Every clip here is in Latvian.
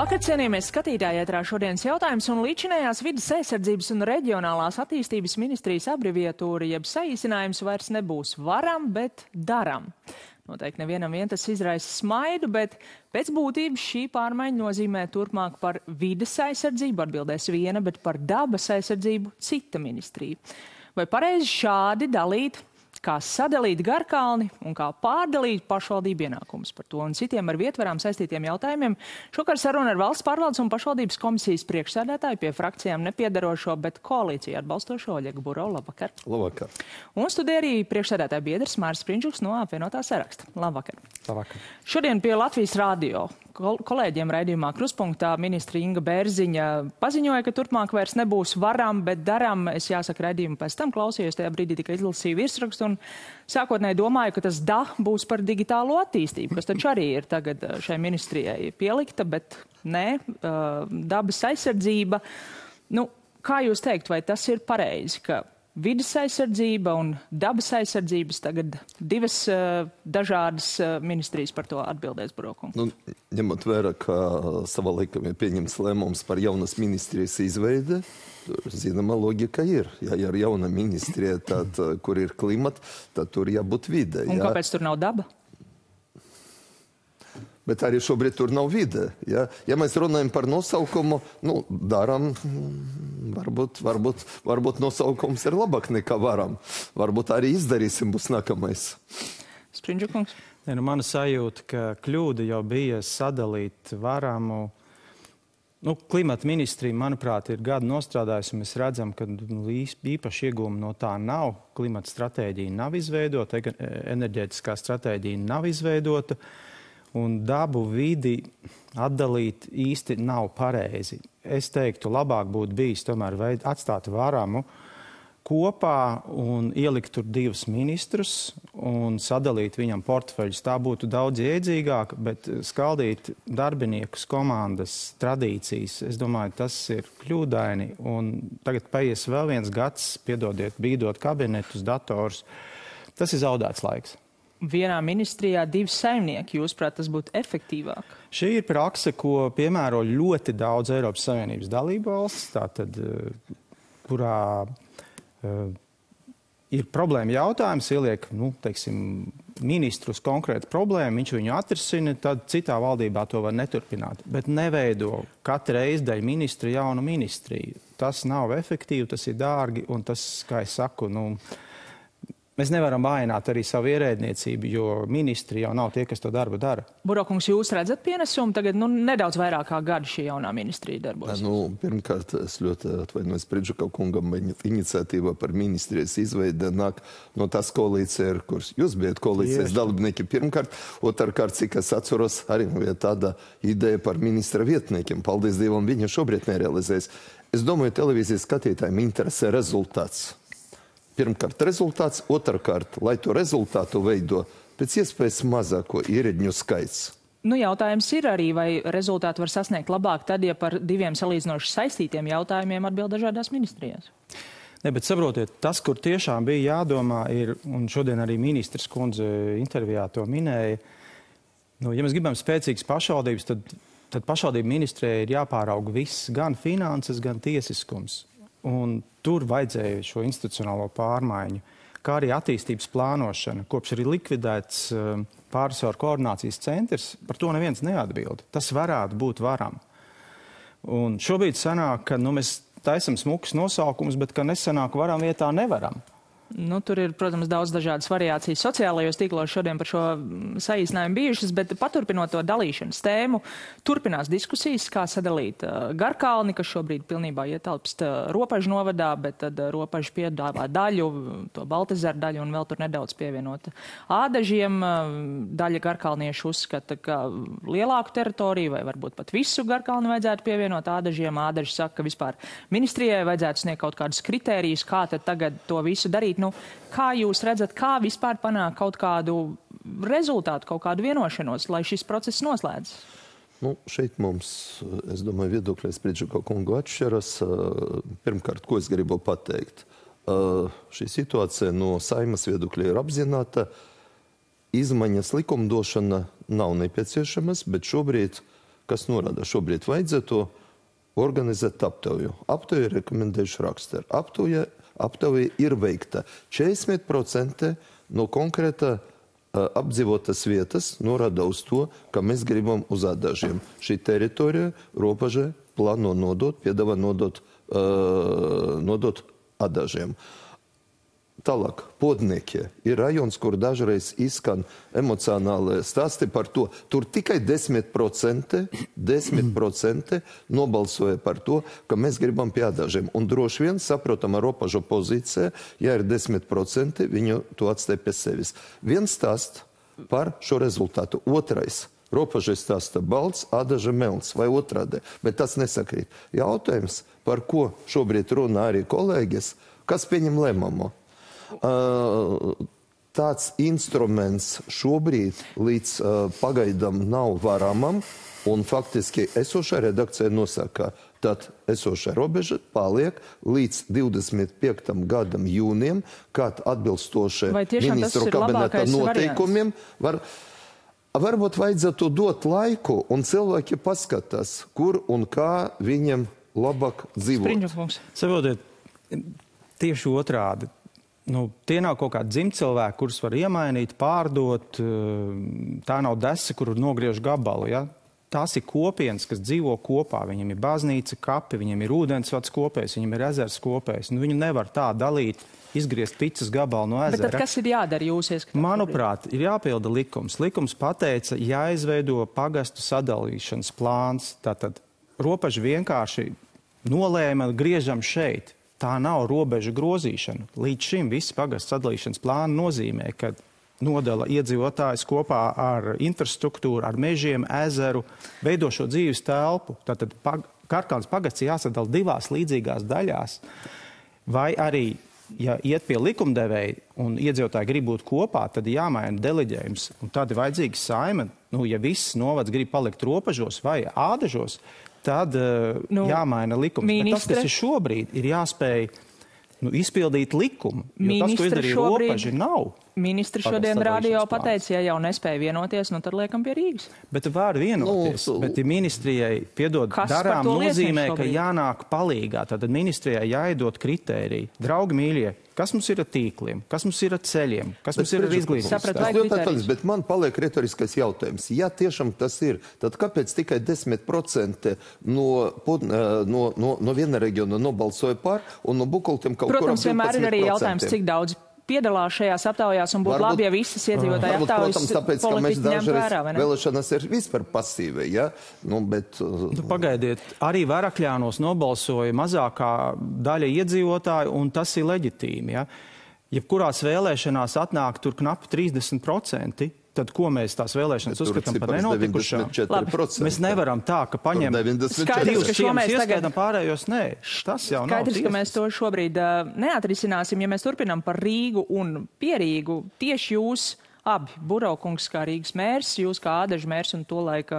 Labvakar, cienījamies skatītāji, ētrā šodienas jautājums un līdzinējās vides aizsardzības un reģionālās attīstības ministrijas abreviatūra, jeb saīsinājums vairs nebūs varam, bet daram. Noteikti nevienam vien tas izraisa smaidu, bet pēc būtības šī pārmaiņa nozīmē turpmāk par vides aizsardzību atbildēs viena, bet par dabas aizsardzību cita ministrija. Vai pareizi šādi dalīt, kā sadalīt Garkalni un kā pārdalīt pašvaldību ienākumus? Par to un citiem ar vietvarām saistītiem jautājumiem šokar saruna ar Valsts pārvaldes un pašvaldības komisijas priekšsēdētāju pie frakcijām nepiedarošo, bet koalīciju atbalstošo Oļegu Burovu. Labvakar. Labvakar. Un studijā arī priekšsēdētāja biedrs Māris Sprindžuks no apvienotā saraksta. Labvakar. Labvakar. Šodien pie Latvijas radio kolēģiem raidījumā Kruspunktā ministra Inga Bērziņa paziņoja, ka turpmāk vairs nebūs varam, bet daram. Es jāsaka raidījumu pēc tam klausījos, tajā brīdī tikai izlasīju virsrakstu un sākotnēji domāju, ka tas da būs par digitālo attīstību, kas taču arī ir tagad šai ministrijai pielikta, bet nē, dabas aizsardzība. Nu, kā jūs teikt, vai tas ir pareizi, ka vides aizsardzība un dabas aizsardzības tagad divas dažādas ministrijas par to atbildēs, Burokungs? Nu, ņemot vērā, ka savā laikam ir pieņemts lēmums par jaunas ministrijas izveidi, zināma logika ir. Ja ir jauna ministrija, tad, kur ir klimata, tad tur jābūt vide. Un kāpēc tur nav daba? Bet arī šobrīd tur nav vide. Ja mēs runājam par nosaukumu, nu, daram, varbūt nosaukums ir labāk nekā varam. Varbūt arī izdarīsim būs nākamais. Sprindžukungs. Mana sajūta, ka kļūda jau bija sadalīt varamu. Klimata ministrija, manuprāt, ir gadu nostrādājusi, un mēs redzam, ka īpaši iegūmi no tā nav. Klimata stratēģija nav izveidota, enerģētiskā stratēģija nav izveidota. Un dabu vidi atdalīt īsti nav pareizi. Es teiktu, labāk būtu bijis tomēr atstāt varamu kopā un ielikt tur divus ministrus un sadalīt viņam portfeļus. Tā būtu daudz iedzīgāk, bet skaldīt darbiniekus, komandas, tradīcijas, es domāju, tas ir kļūdaini. Un tagad paies vēl viens gads, piedodiet, bīdot kabinetus, dators. Tas ir zaudēts laiks. Vienā ministrijā divi saimnieki, jūsuprāt, tas būtu efektīvāk? Šī ir prakse, ko piemēro ļoti daudz Eiropas Savienības dalību valsts, tātad, kurā ir problēma jautājums, ieliek, ministrus konkrētu problēmu, viņš viņu atrisina, tad citā valdībā to var neturpināt. Bet neveido katru reizi daļu ministru jaunu ministriju. Tas nav efektīvi, tas ir dārgi, un tas, kā es saku, mēs nevaram vājināt arī savu ierēdniecību, jo ministri jau nav tie, kas to darbu dara. Burokungs, jūs redzat pienesumu? Tagad nedaudz vairāk kā gadu šī jaunā ministrija darbojas. Pirmkārt, es ļoti atvainojos Sprindžuka kungam, iniciatīva par ministrijas izveidi nāk no tās koalīcijas, kuras jūs bijat koalīcijas dalībnieki pirmkārt. Otrkārt, cik es atceros, arī tāda ideja par ministra vietniekiem. Paldies Dievam, viņa šobrīd nerealizējas. Es domāju, televīzijas skatītājiem interesē rezultāts. Pirmkārt rezultāts, otrkārt, lai to rezultātu veido pēc iespējas mazāko ierēdņu skaits. Jautājums ir arī, vai rezultātu var sasniegt labāk tad, ja par diviem salīdzinoši saistītiem jautājumiem atbild dažādās ministrijās. Bet saprotiet, tas, kur tiešām bija jādomā, ir, un šodien arī ministrs kundze intervijā to minēja, ja mēs gribam spēcīgas pašvaldības, tad pašvaldību ministrijai ir jāpārauga viss, gan finanses, gan tiesiskums. Un tur vajadzēja šo institucionālo pārmaiņu, kā arī attīstības plānošana. Kopš arī likvidēts pārsvaru koordinācijas centrs, par to neviens neatbild. Tas varētu būt varam. Un šobrīd sanāk, ka mēs taisam smukus nosaukumus, bet ka nesanāk varam vietā nevaram. Tur ir, protams, daudz dažādas variācijas sociālajos tīklos šodien par šo saīsinājumu bijušas, bet paturpinot to dalīšanas tēmu, turpinās diskusijas, kā sadalīt Garkalni, kas šobrīd pilnībā ietelpst Ropažu novadā, bet tad Ropažu piedāvā daļu, to Baltezaru daļu un vēl tur nedaudz pievienot Ādažiem. Daļa garkalniešu uzskata, ka lielāku teritoriju vai varbūt pat visu Garkalni vajadzētu pievienot Ādažiem. Ādaži saka, ka vispār ministrijai vajadzētu sniegt kaut kādus kritērijus, kā tad tagad to visu darīt. Kā jūs redzat, kā vispār panākt kaut kādu rezultātu, kaut kādu vienošanos, lai šis process noslēdzas? Šeit mums, es domāju, viedokļi Sprindžuka kungu atšķiras. Pirmkārt, ko es gribu pateikt? Šī situācija no Saeimas viedokļa ir apzināta. Izmaiņas likumdošana nav nepieciešamas, bet šobrīd kas norāda, šobrīd vajadzētu organizēt aptauju. Aptauju ir rekomendējuši raksteri. Aptauja ir veikta. 40% no konkrēta apdzīvotas vietas norāda uz to, ka mēs gribam uz Adažiem. Šī teritorija robežai plāno piedāvā nodot Adažiem. Tālāk, Podniekie ir rajons, kur dažreiz izskan emocionāli stāsti par to. Tur tikai 10% nobalsoja par to, ka mēs gribam pie Adažiem. Un droši vien saprotama robežu pozīcija, ja ir 10%, viņu to atstāja pie sevis. Viens stāsts par šo rezultātu. Otrais. Robežai stāsta balts, Adaža melns vai otrādi, bet tas nesakrīt. Jautājums, par ko šobrīd runā arī kolēģis, kas pieņem lēmumu? Tāds instruments šobrīd līdz pagaidam nav varamam, un faktiski esošā redakcija nosaka, tad esošā robeža paliek līdz 25. gadam jūnijam, kad atbilstoši ministru kabineta noteikumiem varbūt vajadzētu dot laiku, un cilvēki paskatās, kur un kā viņiem labāk dzīvot. Saprotiet, tieši otrādi. Tie nav kaut kādi dzimtcilvēki, kurus var iemainīt, pārdot. Tā nav desa, kuru nogriež gabalu. Ja? Tās ir kopienas, kas dzīvo kopā. Viņiem ir baznīca, kapi, viņiem ir ūdensvads kopējs, viņiem ir ezers kopējs. Viņu nevar tā dalīt, izgriezt picas gabalu no ezera. Bet tad kas ir jādara jūs ieskatāt? Manuprāt, ir jāpilda likums. Likums pateica, jāizveido pagastu sadalīšanas plāns. Tātad robeža vienkārši nolēma, griežam šeit. Tā nav robežu grozīšana. Līdz šim visi pagastu sadalīšanas plāni nozīmē, ka nodala iedzīvotājus kopā ar infrastruktūru, ar mežiem, ezeru, veido šo dzīves telpu. Tātad Karkalnes pagasts jāsadala divās līdzīgās daļās. Vai arī, ja iet pie likumdevēja un iedzīvotāji grib būt kopā, tad jāmaina deleģējums. Un tad ir vajadzīga saima. Ja viss novads grib palikt robežos vai Ādažos, tad jāmaina likums. Bet tas, kas ir šobrīd, ir jāspēj izpildīt likumu. Jo tas, ko izdarīja robeža, nav. Ministri šodien radio pateica, ja jau nespēja vienoties, tad liekam pie Rīgas. Bet var vienoties. Bet ministrijai, darām nozīmē, ka jānāk palīgā. Tad ministrijai jāiedod kritēriji. Draugi mīļie, kas mums ir ar tīkliem, kas mums ir ar ceļiem, kas mums ir ar izglītības? Bet man paliek retoriskais jautājums. Ja tiešām tas ir, tad kāpēc tikai 10% no viena reģiona nobalsoja par un no Bukultiem kaut kur ap 12%? Protams, vienmēr ir arī jautājums, cik daudz piedalās šajās aptaujās un būtu labi, ja visas iedzīvotāji aptaujas politiķi ņemtu vērā, vai ne? Vēlēšanas ir vispār pasīvi, ja? Pagaidiet, arī Varakļānos nobalsoja mazākā daļa iedzīvotāju, un tas ir leģitīmi, ja? Jebkurās vēlēšanās atnāk tur knapi 30%, tad ko mēs tās vēlēšanas uzskatām par nenotikušām? Mēs nevaram tā, ka paņem skaidrs, ka šo mēs tagad pārējos, nē. Tas jau nav skaidrs, ka mēs to šobrīd neatrisināsim, ja mēs turpinām par Rīgu un pie Rīgu. Tieši jūs abi, Buraukungs kā Rīgas mērs, jūs kā Ādažu mērs un tolaik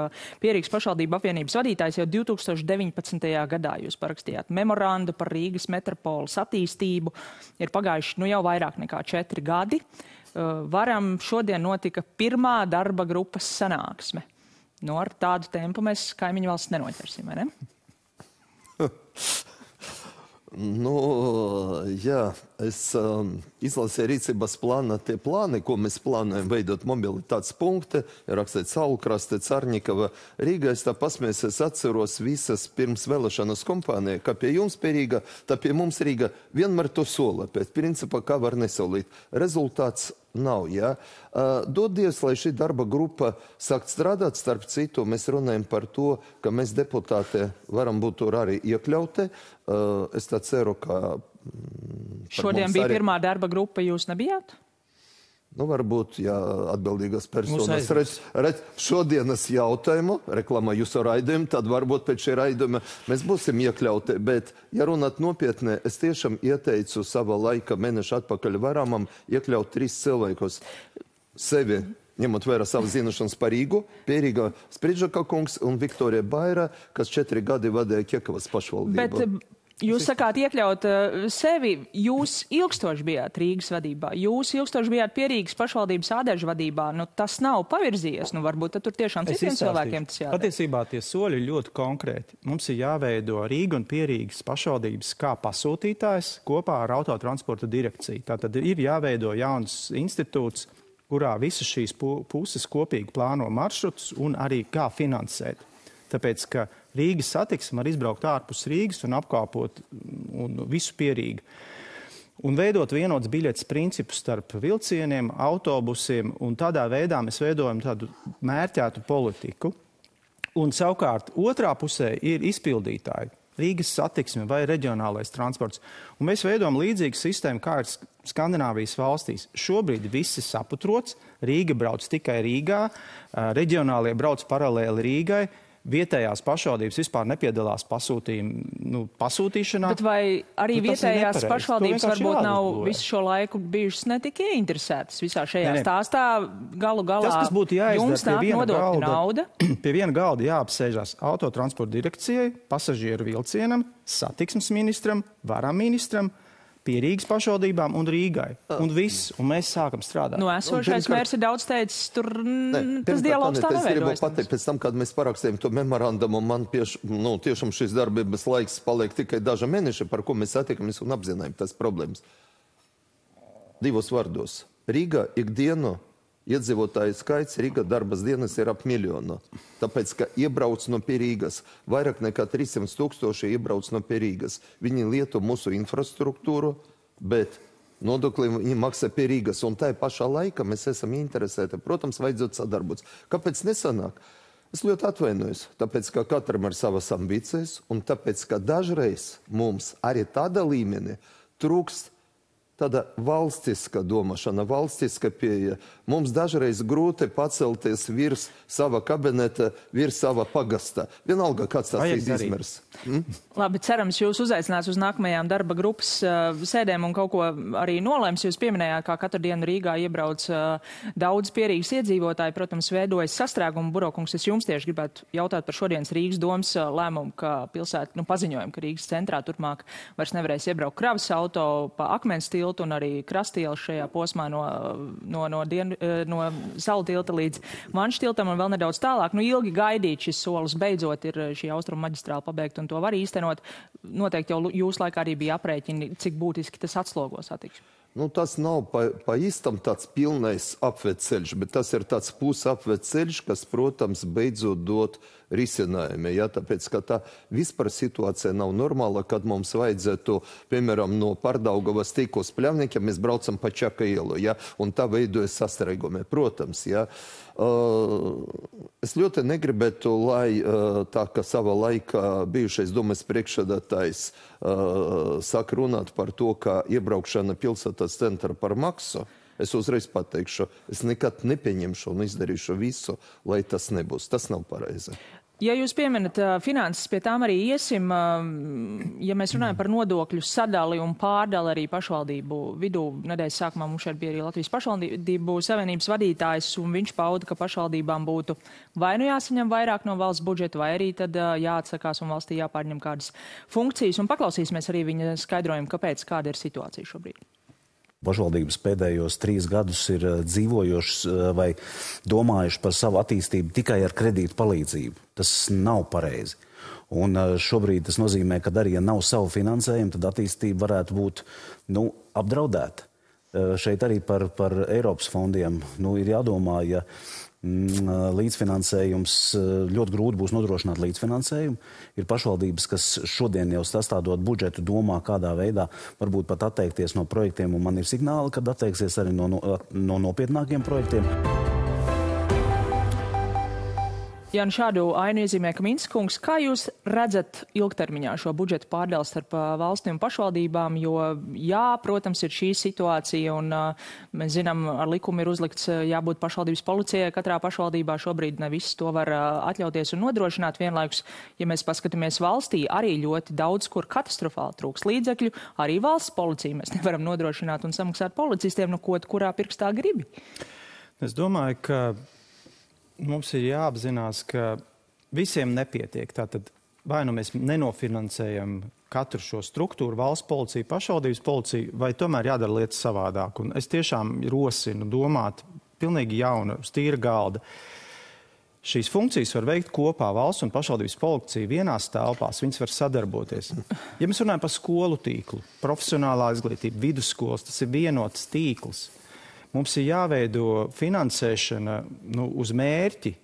Pierīgas pašvaldību apvienības vadītājs jau 2019. gadā jūs parakstījāt memorandu par Rīgas metropoles attīstību. Ir pagājuši jau vairāk nekā 4 gadi. Šodien notika pirmā darba grupas sanāksme. Ar tādu tempu mēs kaimiņu valsts nenoķersim, vai ne? Jā, es izlasīju rīcības plāna tie plāni, ko mēs plānojam veidot mobilitātes punkti, rakstīt Saulkraste, Carņikava, Rīgā. Es tā pasmies, es atceros visas pirms vēlēšanas kompānija, kā pie jums pie Rīga, tā pie mums Rīga vienmēr to sola, pēc principa, kā var nesolīt. Rezultāts nav, jā. Dodies, lai šī darba grupa sākt strādāt, starp citu, mēs runājam par to, ka mēs deputāti varam būt tur arī iekļauti. Es tā ceru, ka... Šodien bija pirmā darba grupa, jūs nebijāt? Varbūt, ja atbildīgas personas redz šodienas jautājumu, reklamā jūsu raidījumu, tad varbūt pēc šī raidījuma mēs būsim iekļauti. Bet, ja runāt nopietni, es tiešām ieteicu sava laika mēneša atpakaļ varamam iekļaut 3 cilvēkus sevi, ņemot vērā savas zināšanas par Rīgu, Pierīga Spridžaka kungs un Viktorija Baira, kas 4 gadi vadīja Kiekavas pašvaldību. Jūs sakāt iekļaut sevi, jūs ilgstoši bijāt Rīgas vadībā, jūs ilgstoši bijāt pie Rīgas pašvaldības ādežu vadībā, nu tas nav pavirzījies, nu varbūt tad tur tiešām citiem cilvēkiem tas jādara. Patiesībā tie soļi ir ļoti konkrēti. Mums ir jāveido Rīga un Pierīgas pašvaldības kā pasūtītājs kopā ar autotransporta direkciju. Tātad ir jāveido jauns institūts, kurā visas šīs puses kopīgi plāno maršrutus un arī kā finansēt. Tāpēc, ka Rīgas satiksme var izbraukt ārpus Rīgas un apkalpot visu Pierīgu. Un veidot vienots biļetes principus starp vilcieniem, autobusiem, un tādā veidā mēs veidojam tādu mērķētu politiku. Un savukārt otrā pusē ir izpildītāji, Rīgas satiksme vai reģionālais transports. Un mēs veidojam līdzīgu sistēmu, kā ir Skandināvijas valstīs. Šobrīd viss ir saputrots, Rīga brauc tikai Rīgā, reģionālie brauc paralēli Rīgai, vietējās pašvaldības vispār nepiedalās pasūtīšanā. Bet vai arī vietējās pašvaldības varbūt nav visu šo laiku bijušas netik ieinteresētas visā šajā stāstā? Galu galā tas, kas būtu jāizdara, jums nāk nodokļu nauda? Pie viena galda jāapsēžās autotransporta direkcijai, pasažieru vilcienam, satiksmes ministram, varam ministram, Pierīgas pašvaldībām un Rīgai. Un viss, un mēs sākam strādāt. Nu, esošais mērs ir daudz teicis, tur tas dialogs tā neveidojas. Es gribu pateikt, pēc tam, kad mēs parakstījām to memorandumu, man tiešām šis darbības laiks paliek tikai daži mēneši, par ko mēs satiekamies un apzinājam tas problēmas. Divos vārdos. Rīga ikdienu iedzīvotāju skaits Rīga darbas dienas ir ap 1 miljonu. Tāpēc, ka iebrauc no Pierīgas, vairāk nekā 300 000 iebrauc no Pierīgas. Viņi lieto mūsu infrastruktūru, bet nodokli viņi maksā Pierīgas. Un tā pašā laikā mēs esam interesēti. Protams, vajadzētu sadarboties. Kāpēc nesanāk? Es ļoti atvainojos. Tāpēc, ka katram ir savas ambīcijas, un tāpēc, ka dažreiz mums arī tāda līmenī trūkst tāda valstiska domāšana, valstiska pieeja. Mums dažreiz grūti pacelties virs sava kabineta, virs sava pagasta. Vienalga, kāds tas izmērs. Labi, cerams, jūs uzaicinās uz nākamajām darba grupas sēdēm un kaut ko arī nolēms. Jūs pieminējāt, kā katru dienu Rīgā iebrauc daudz Pierīgas iedzīvotāji, protams, veidojas sastrēgumu. Burokungs, es jums tieši gribētu jautāt par šodienas Rīgas domas lēmumu, ka pilsēta, paziņojumu, ka Rīgas centrā turpmāk vairs nevarēs iebraukt kravas auto pa Akmens tiltu un arī Krastielu šajā posmā no Salu tilta līdz Manšu tiltam un vēl nedaudz tālāk. Nu, ilgi gaidīt šis solis, beidzot ir šī austrumu maģistrāla pabeigta un to var īstenot. Noteikti jau jūs laikā arī bija aprēķini, cik būtiski tas atslogo satiksmi. Nu, tas nav pa īstam tāds pilnais apveceļš, bet tas ir tāds pusapveceļš, kas, protams, beidzot dot risinājumi. Ja? Tāpēc, ka tā vispār situācija nav normāla, kad mums vajadzētu, piemēram, no Pārdaugavas tikko uz Pļavniekiem, mēs braucam pa Čaka ielu, ja? Un tā veidojas sastrēgumi. Protams, ja? Es ļoti negribētu, lai tā, ka savā laikā bijušais domas priekšsēdētājs saka runāt par to, ka iebraukšana pilsētas centra par maksu. Es uzreiz pateikšu, es nekad nepieņemšu un izdarīšu visu, lai tas nebūs. Tas nav pareizi. Ja jūs pieminat finanses, pie tām arī iesim, ja mēs runājam par nodokļu sadali un pārdali arī pašvaldību vidū, nedēļas sākumā mums šeit bija arī Latvijas pašvaldību savienības vadītājs, un viņš pauda, ka pašvaldībām būtu vai nu jāsaņem vairāk no valsts budžeta, vai arī tad jāatsakās un valstī jāpārņem kādas funkcijas, un paklausīsimies arī viņa skaidrojumu, kāpēc, kāda ir situācija šobrīd. Pašvaldības pēdējos 3 gadus ir dzīvojušas vai domājuši par savu attīstību tikai ar kredītu palīdzību. Tas nav pareizi. Un šobrīd tas nozīmē, ka arī, ja nav savu finansējumu, tad attīstība varētu būt apdraudēta. Šeit arī par Eiropas fondiem ir jādomā, ja līdzfinansējums, ļoti grūti būs nodrošināt līdzfinansējumu. Ir pašvaldības, kas šodien jau sastādot budžetu, domā, kādā veidā varbūt pat atteikties no projektiem, un man ir signāli, kad atteiksies arī no nopietnākiem projektiem. Ja šādu ainu iezīmē Kaminskungs, kā jūs redzat ilgtermiņā šo budžetu pārdali starp valsti un pašvaldībām, jo jā, protams, ir šī situācija un mēs zinām, ar likumu ir uzlikts jābūt pašvaldības policijai katrā pašvaldībā, šobrīd ne viss to var atļauties un nodrošināt vienlaikus, ja mēs paskatāmies valstī, arī ļoti daudz, kur katastrofāli trūks līdzekļu, arī valsts policija mēs nevaram nodrošināt un samaksāt policistiem, kurā pirkstā gribi. Es domāju, ka mums ir jāapzinās, ka visiem nepietiek. Tātad vai nu mēs nenofinansējam katru šo struktūru, valsts policiju, pašvaldības policiju, vai tomēr jādara lietas savādāk. Un es tiešām rosinu domāt pilnīgi jaunu, uz tīra galda. Šīs funkcijas var veikt kopā valsts un pašvaldības policija vienās telpās, viņas var sadarboties. Ja mēs runājam par skolu tīklu, profesionālā izglītība, vidusskolas, tas ir vienots tīkls. Mums ir jāveido finansēšana uz mērķi,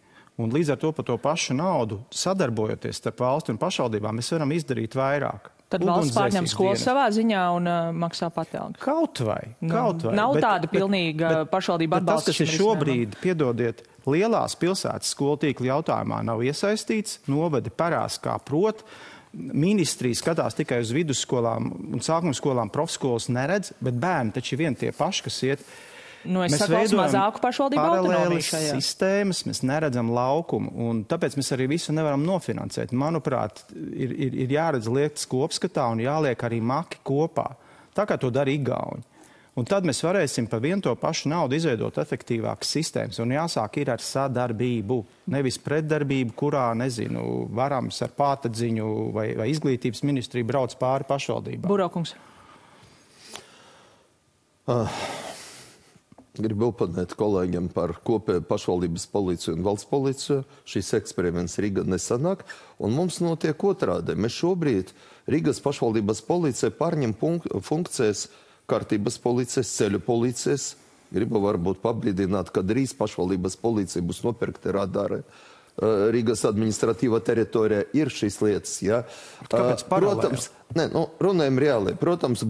un līdz ar to par to pašu naudu, sadarbojoties starp valsti un pašvaldībām, mēs varam izdarīt vairāk. Tad valsts pārņem skolu savā ziņā un maksā pati algu. Kaut vai. Nav tāda pilnīga pašvaldība atbalsta. Tas, kas ir šobrīd, piedodiet, lielās pilsētas skolu tīkla jautājumā nav iesaistīts, novadi parās kā prot, ministrija skatās tikai uz vidusskolām un sākuma skolām, profskolas neredz, bet bērni taču vien tie paši, kas iet. Es saku, mazāku pašvaldību autonomiju šajā. Sistēmas, mēs neredzam laukumu, un tāpēc mēs arī visu nevaram nofinansēt. Manuprāt, ir jāredz lietas kopskatā un jāliek arī maki kopā, tā kā to dara Igauni. Un tad mēs varēsim par vienu to pašu naudu izveidot efektīvākas sistēmas, un jāsāk ir ar sadarbību, nevis pretdarbību, kurā, varams ar pātadziņu vai izglītības ministriju brauc pāri pašvaldībām. Burokungs. Gribu pamanīt kolēģiem par kopēju pašvaldības policiju un valsts policiju. Šis eksperiments Rīga nesanāk, un mums notiek otrādi. Mēs šobrīd Rīgas pašvaldības policija pārņem funkcijas kārtības policijas, ceļu policijas. Gribu varbūt pabrīdināt, ka drīz pašvaldības policija būs nopirkti radari. Rīgas administratīva teritorija ir šīs lietas. Ja? Protams, runājam reāli. Protams,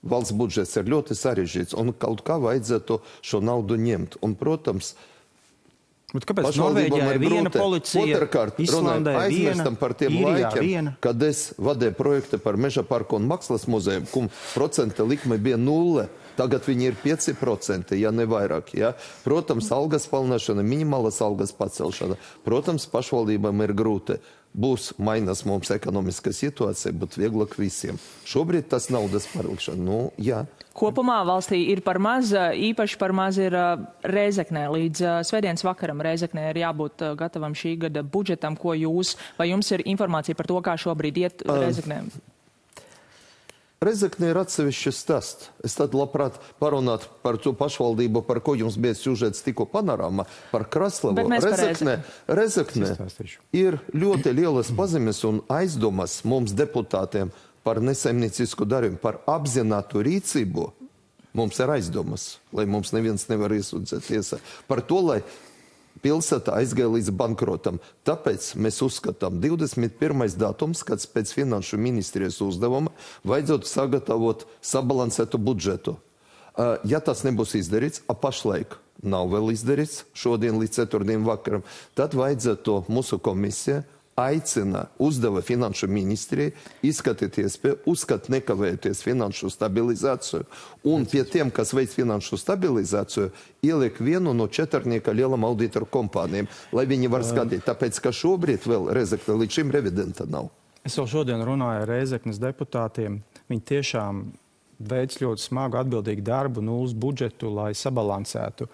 valsts budžets ir ļoti sarežģīts, un kaut kā vajadzētu šo naudu ņemt. Un, protams, kāpēc Norvēģijā ir viena policija, Islandē ir viena, aizmirstam par tiem Īrijā laikiem, viena. Kad es vadīju projektu par Meža parku un Mākslas muzeju, kum procenta likme bija 0. Tagad viņi ir 5%, ja ne vairāk. Ja? Protams, algas palnēšana, minimālas algas pacelšana. Protams, pašvaldībām ir grūti. Būs mainās mums ekonomiskā situācija, bet vieglāk visiem. Šobrīd tas naudas pārlikšana. Jā. Kopumā valstī ir par maz, īpaši par maz ir Rēzeknē. Līdz svētdienas vakaram Rēzeknē ir jābūt gatavam šī gada budžetam, vai jums ir informācija par to, kā šobrīd iet Rēzeknē? Rēzekne ir atsevišķs stāsts. Es tad labprāt parunātu par to pašvaldību, par ko jums bija siužets tikko panorāma, par Kraslavu. Rēzekne ir ļoti lielas pazemes un aizdomas mums deputātiem par nesaimniecisku darījumu, par apzinātu rīcību. Mums ir aizdomas, lai mums neviens nevar iesūdzēt tiesā. Par to, lai pilsēta aizgāja līdz bankrotam. Tāpēc mēs uzskatām 21. datums, kad pēc finanšu ministrijas uzdevuma vajadzētu sagatavot sabalansētu budžetu. Ja tas nebūs izdarīts, pašlaik nav vēl izdarīts, šodien līdz 4. vakaram, tad vajadzētu mūsu komisija aicina, uzdeva finanšu ministriju izskatīt iespēju, uzskat nekavējoties finanšu stabilizāciju un pie tiem, kas veic finanšu stabilizāciju, ieliek vienu no 4 lielam auditoru kompānijām, lai viņi var skatīt, tāpēc, ka šobrīd vēl Rēzekne līdz šim revidenta nav. Es jau šodien runāju ar Rēzeknes deputātiem. Viņi tiešām veic ļoti smagu atbildīgu darbu, nulles budžetu, lai sabalansētu.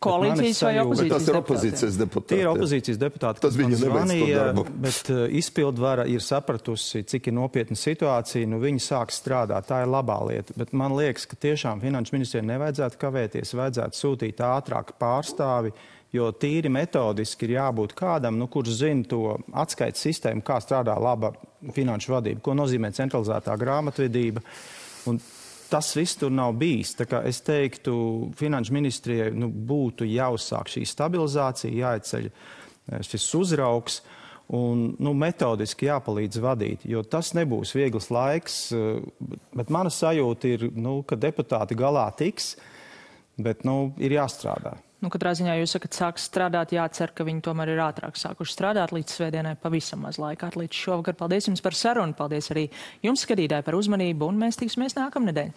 Koalīcijas vai opozīcijas deputāti? Tas ir opozīcijas deputāti. Tie ir opozīcijas deputāti, kas man zvanīja, bet izpildvara ir sapratusi, cik ir nopietna situācija. Viņi sāk strādāt, tā ir labā lieta. Bet man liekas, ka tiešām finanšu ministrijai nevajadzētu kavēties, vajadzētu sūtīt ātrāk pārstāvi, jo tīri metodiski ir jābūt kādam, kurš zina to atskaites sistēmu, kā strādā laba finanšu vadība, ko nozīmē centralizētā grāmatvedība. Un tas viss tur nav bijis. Tā kā es teiktu, finanšu ministrijai būtu jāuzsāk šī stabilizācija, jāieceļ šis uzraugs un metodiski jāpalīdz vadīt, jo tas nebūs viegls laiks, bet mana sajūta ir, ka deputāti galā tiks, bet ir jāstrādā. Katrā ziņā jūs sakat, sāks strādāt, jācer, ka viņi tomēr ir ātrāk sākuši strādāt līdz svētdienai pavisam maz laikā. Līdz šovakar paldies jums par sarunu, paldies arī jums, skatītāji, par uzmanību, un mēs tiksimies nākamnedēļ.